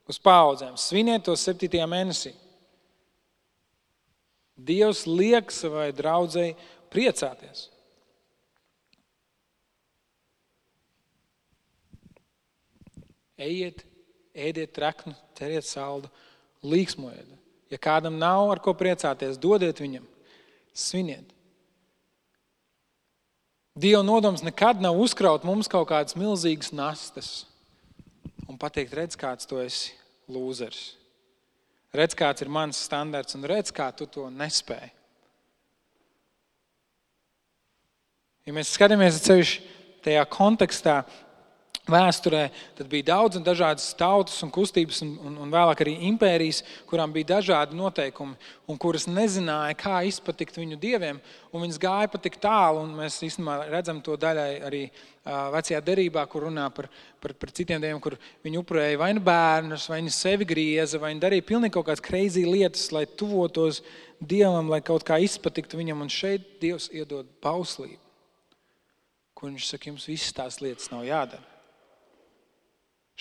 uz paudzēm. Sviniet to 7. mēnesī. Dievs liek savai draudzei priecāties. Ejiet, ēdiet treknu, ķeriet saldu, līksmojiet. Ja kādam nav ar ko priecāties, dodiet viņam, sviniet. Dieva nodoms nekad nav uzkraut mums kaut kādas milzīgas nastas un pateikt, redz, kāds tu esi lūzers. Redz, kāds ir mans standarts un redz, kā tu to nespēji. Ja mēs skatāmies ceļš tajā kontekstā, vēsturē, tad bija daudz un dažādas tautas un kustības un vēlāk arī impērijas, kurām bija dažādi noteikumi un kuras nezināja, kā izpatikt viņu dieviem, un viņas gāja pat tik tālu, un mēs īstenībā redzam to daļai arī vecajā derībā, kur runā par citiem dieviem, kur viņi upurēja vai nu bērnus, vai nu sevi grieza, vai nu darīja pilnīgi kaut kādas crazy lietas, lai tuvotos dievam, lai kaut kā izpatiktu viņam, un šeit Dievs iedod bauslību, kur viņš saka, jums visas tās lietas nav jādara.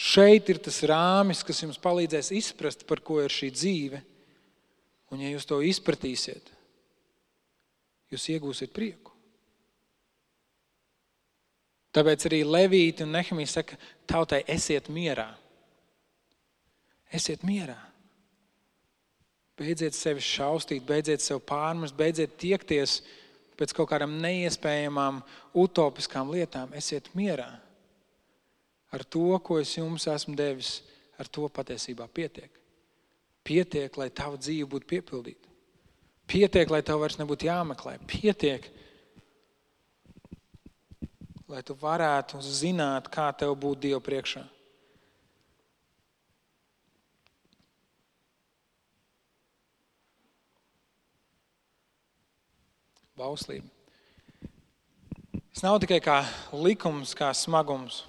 Šeit ir tas rāmis, kas jums palīdzēs izprast, par ko ir šī dzīve. Un ja jūs to izpratīsiet, jūs iegūsiet prieku. Tāpēc arī Levīti un Nehemija saka, tautai esiet mierā. Esiet mierā. Beidziet sevi šaustīt, beidziet sev pārmest, beidziet tiekties pēc kaut kādām neiespējamām, utopiskām lietām. Esiet mierā. Ar to, ko es jums esmu devis, ar to patiesībā pietiek. Pietiek, lai tava dzīve būtu piepildīta. Pietiek, lai tev vairs nebūtu jāmeklē. Pietiek, lai tu varētu zināt, kā tev būt Dievu priekšā. Bauslība. Tas nav tikai kā likums, kā smagums.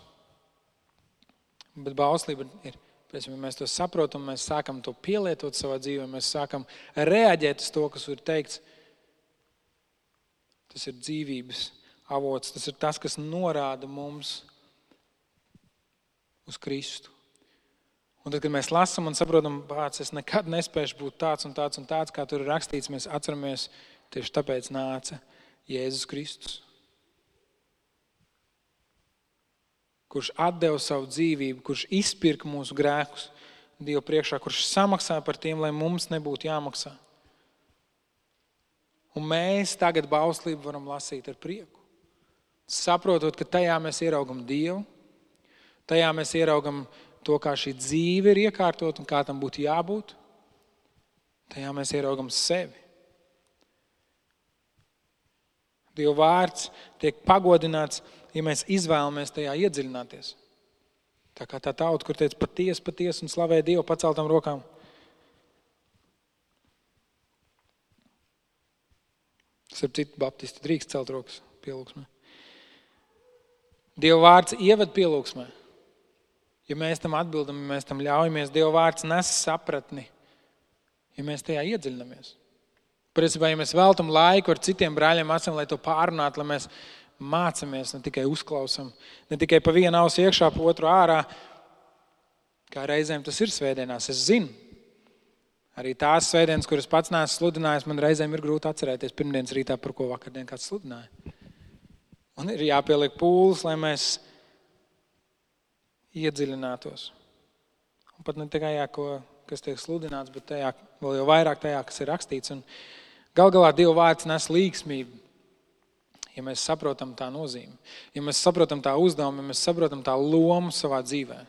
Bet bauslība ir, ja mēs to saprotam, mēs sākam to pielietot savā dzīvē, mēs sākam reaģēt uz to, kas ir teikts. Tas ir dzīvības avots, tas ir tas, kas norāda mums uz Kristu. Un tad, kad mēs lasam un saprotam, pats, es nekad nespēšu būt tāds un tāds un tāds, kā tur ir rakstīts, mēs atceramies, tieši tāpēc nāca Jēzus Kristus, kurš atdeva savu dzīvību, kurš izpirka mūsu grēkus Dievu priekšā, kurš samaksā par tiem, lai mums nebūtu jāmaksā. Un mēs tagad bauslību varam lasīt ar prieku. Saprotot, ka tajā mēs ieraugam Dievu, tajā mēs ieraugam to, kā šī dzīve ir iekārtot un kā tam būtu jābūt. Tajā mēs ieraugam sevi. Dieva vārds tiek pagodināts, ja mēs izvēlamies tajā iedziļināties. Tā kā tā tauta, kur teica patiesi un slavē Dievu paceltām rokām. Starp citu, baptisti drīkst celt rokas pielūgsmē. Dieva vārds ieved pielūgsmē. Ja mēs tam atbildam, ja mēs tam ļaujamies, Dieva vārds nes sapratni, ja mēs tajā iedziļinamies. Principā, ja mēs veltam laiku ar citiem brāļiem mācām, lai to pārunātu, lai mēs mācamies, ne tikai uzklausam, ne tikai pa vienu ausu iekšā, pa otru ārā, kā reizēm tas ir svētdienās. Es zinu, arī tās svētdienas, kuras pats neesmu sludinājis, man reizēm ir grūti atcerēties pirmdienas rītā, par ko vakardien kāds sludināja. Un ir jāpieliek pūles, lai mēs iedziļinātos. Un pat ne tikai kas tiek sludināts, bet tajā, vēl jau vairāk tajā, kas ir rakstīts. Un gal galā Dieva vārds nes līgsmību, ja mēs saprotam tā nozīmi, ja mēs saprotam tā uzdevumu, ja mēs saprotam tā lomu savā dzīvē.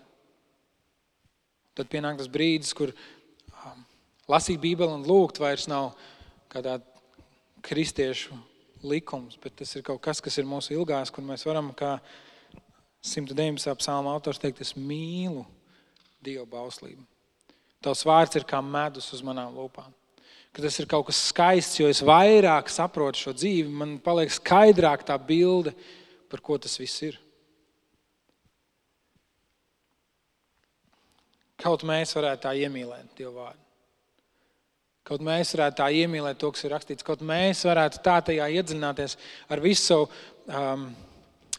Tad pienāk tas brīdis, kur lasīt Bībeli un lūgt vairs nav kādā kristiešu likums, bet tas ir kaut kas, kas ir mūsu ilgās, kur mēs varam, kā 119. psalma autors teikt, es mīlu Dieva bauslību. Tavs vārds ir kā medus uz manām lūpām. Ka tas ir kaut kas skaists, jo es vairāk saprotu šo dzīvi, man paliek skaidrāk tā bilde, par ko tas viss ir. Kaut mēs varētu tā iemīlēt Dievu vārdu. Kaut mēs varētu tā iemīlēt to, kas ir rakstīts. Kaut mēs varētu tā tajā iedziļināties ar visu savu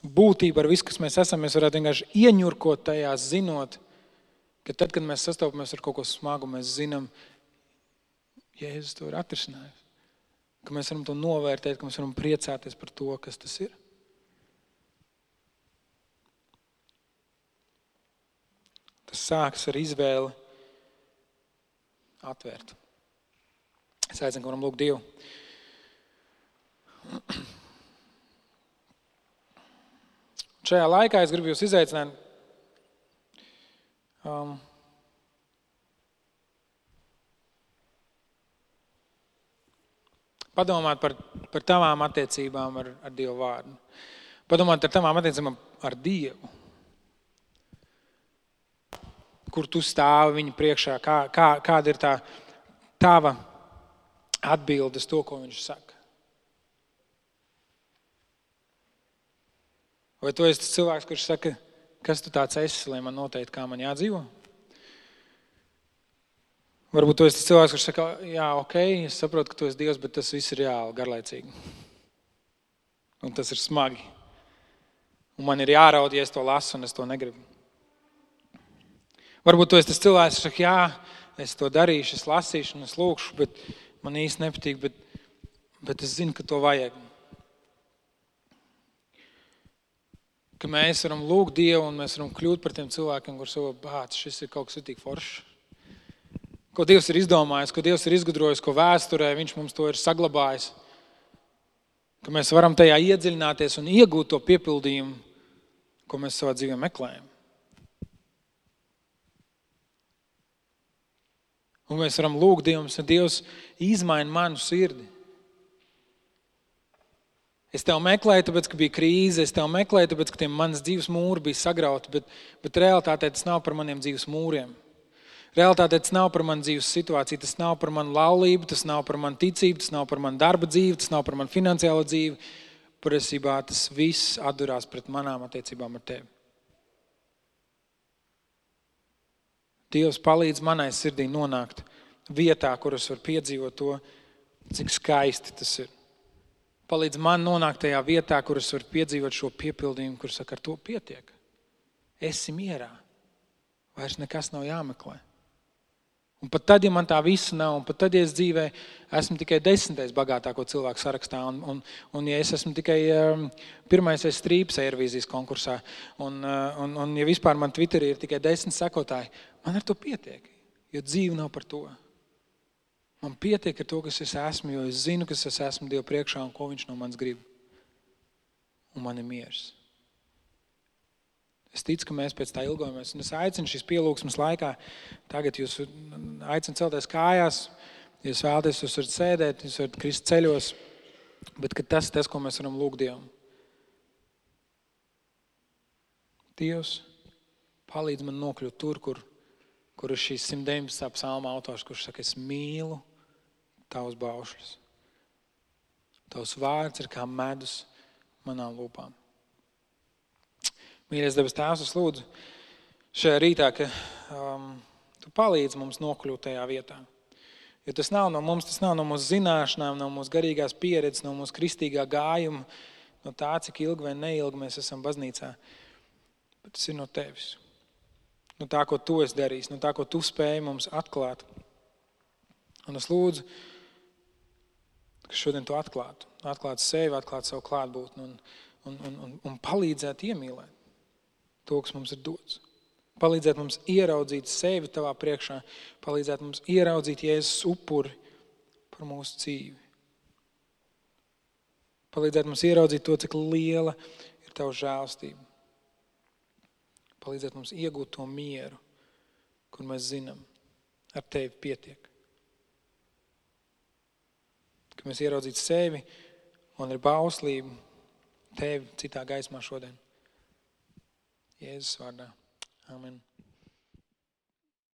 būtību, ar visu, kas mēs esam. Mēs varētu vienkārši ieņurkot tajā, zinot, ka tad, kad mēs sastopamies ar kaut ko smagu, mēs zinām, Jēzus to ir atrisinājis. Ka mēs varam to novērtēt, ka mēs varam priecāties par to, kas tas ir. Tas sākas ar izvēli atvērt. Es aicinu, ka varam lūgt Dievu. Šajā laikā es gribu jūs izaicināt padomāt par tavām attiecībām ar Dievu vārdu. Padomāt par tavām attiecībām ar Dievu. kur tu stāvi viņa priekšā, kāda ir tā tava atbilde uz to, ko viņš saka. Vai tu esi tas cilvēks, kurš saka, kas tu tāds esi, lai man noteikti, kā man jādzīvo? Varbūt tu esi tas cilvēks, kurš saka, jā, ok, es saprotu, ka tu esi Dievs, bet tas viss ir reāli garlaicīgi. Un tas ir smagi. Un man ir jāraud, ja es to lasu, un es to negribu. Varbūt tu esi tas cilvēks, kurš saka, jā, es to darīšu, es lasīšu un es lūkšu, bet man īsti nepatīk, bet es zinu, ka to vajag. Ka mēs varam lūgt Dievu un mēs varam kļūt par tiem cilvēkiem, kur savu bāc, šis ir kaut kas tik foršs. Ko Dievs ir izdomājis, ko Dievs ir izgudrojis, ko vēsturē viņš mums to ir saglabājis. Ka mēs varam tajā iedziļināties un iegūt to piepildījumu, ko mēs savā dzīvē meklējam. Un mēs varam lūgt Dievu, ka Dievs izmaina manu sirdi. Es tev meklēju, tāpēc, ka bija krīze, es tev meklēju, tāpēc, ka manas dzīves mūri bija sagrauti, bet realitātē tas nav par maniem dzīves mūriem. Realitātē tas nav par manu dzīves situāciju, tas nav par manu laulību, tas nav par manu ticību, tas nav par manu darba dzīvi, tas nav par manu finansiālo dzīvi. Patiesībā tas viss atdurās pret manām attiecībām ar tevi. Dievs palīdz manai sirdī nonākt vietā, kur es varu piedzīvot to, cik skaisti tas ir. Palīdz man nonākt tajā vietā, kur es varu piedzīvot šo piepildījumu, kur saka, ar to pietiek. Esi mierā. Vairs nekas nav jāmeklē. Un pat tad, ja man tā visa nav, un pat tad, ja es dzīvē esmu tikai 10. bagātāko cilvēku sarakstā, un ja es esmu tikai pirmais strīps Eirovīzijas konkursā, un ja vispār man Twitterī ir tikai 10 sekotāji, man ar to pietiek, jo dzīve nav par to. Man pietiek ar to, kas es esmu, jo es zinu, kas es esmu Dievu priekšā un ko viņš no manis grib. Un man ir miers. Es ticu, ka mēs pēc tā ilgojamies. Un es aicinu šīs pielūgsmes laikā, tagad jūs aicinu celties kājās, jūs vēlaties, jūs varat sēdēt, jūs varat krist ceļos, bet ka tas, ko mēs varam lūgt Dievam. Dievs, palīdz man nokļūt tur, kur ir šīs 119. psalma autors, kurš saka, es mīlu tavus baušļus. Tavs vārds ir kā medus manām lūpām. Mīļais debes Tēvs, es lūdzu šajā rītā, ka tu palīdzi mums nokļūt tajā vietā. Jo tas nav no mums, tas nav no mūsu zināšanām, no mūsu garīgās pieredzes, no mūsu kristīgā gājuma, no tā, cik ilgi vai neilgi mēs esam baznīcā. Bet tas ir no tevis. No tā, ko tu esi darījis, no tā, ko tu spēji mums atklāt. Un es lūdzu, ka šodien tu atklātu sevi, atklātu savu klātbūtni un palīdzētu iemīlēt to, kas mums ir dots. Palīdzētu mums ieraudzīt sevi tavā priekšā, palīdzētu mums ieraudzīt Jēzus upuri par mūsu dzīvi. Palīdzētu mums ieraudzīt to, cik liela ir tava žēlstība. Palīdzētu mums iegūt to mieru, kur mēs zinām, ar tevi pietiek. Ka mēs ieraudzītu sevi un ar bauslību tevi citā gaismā šodien. Jēzus vārdā. Amen.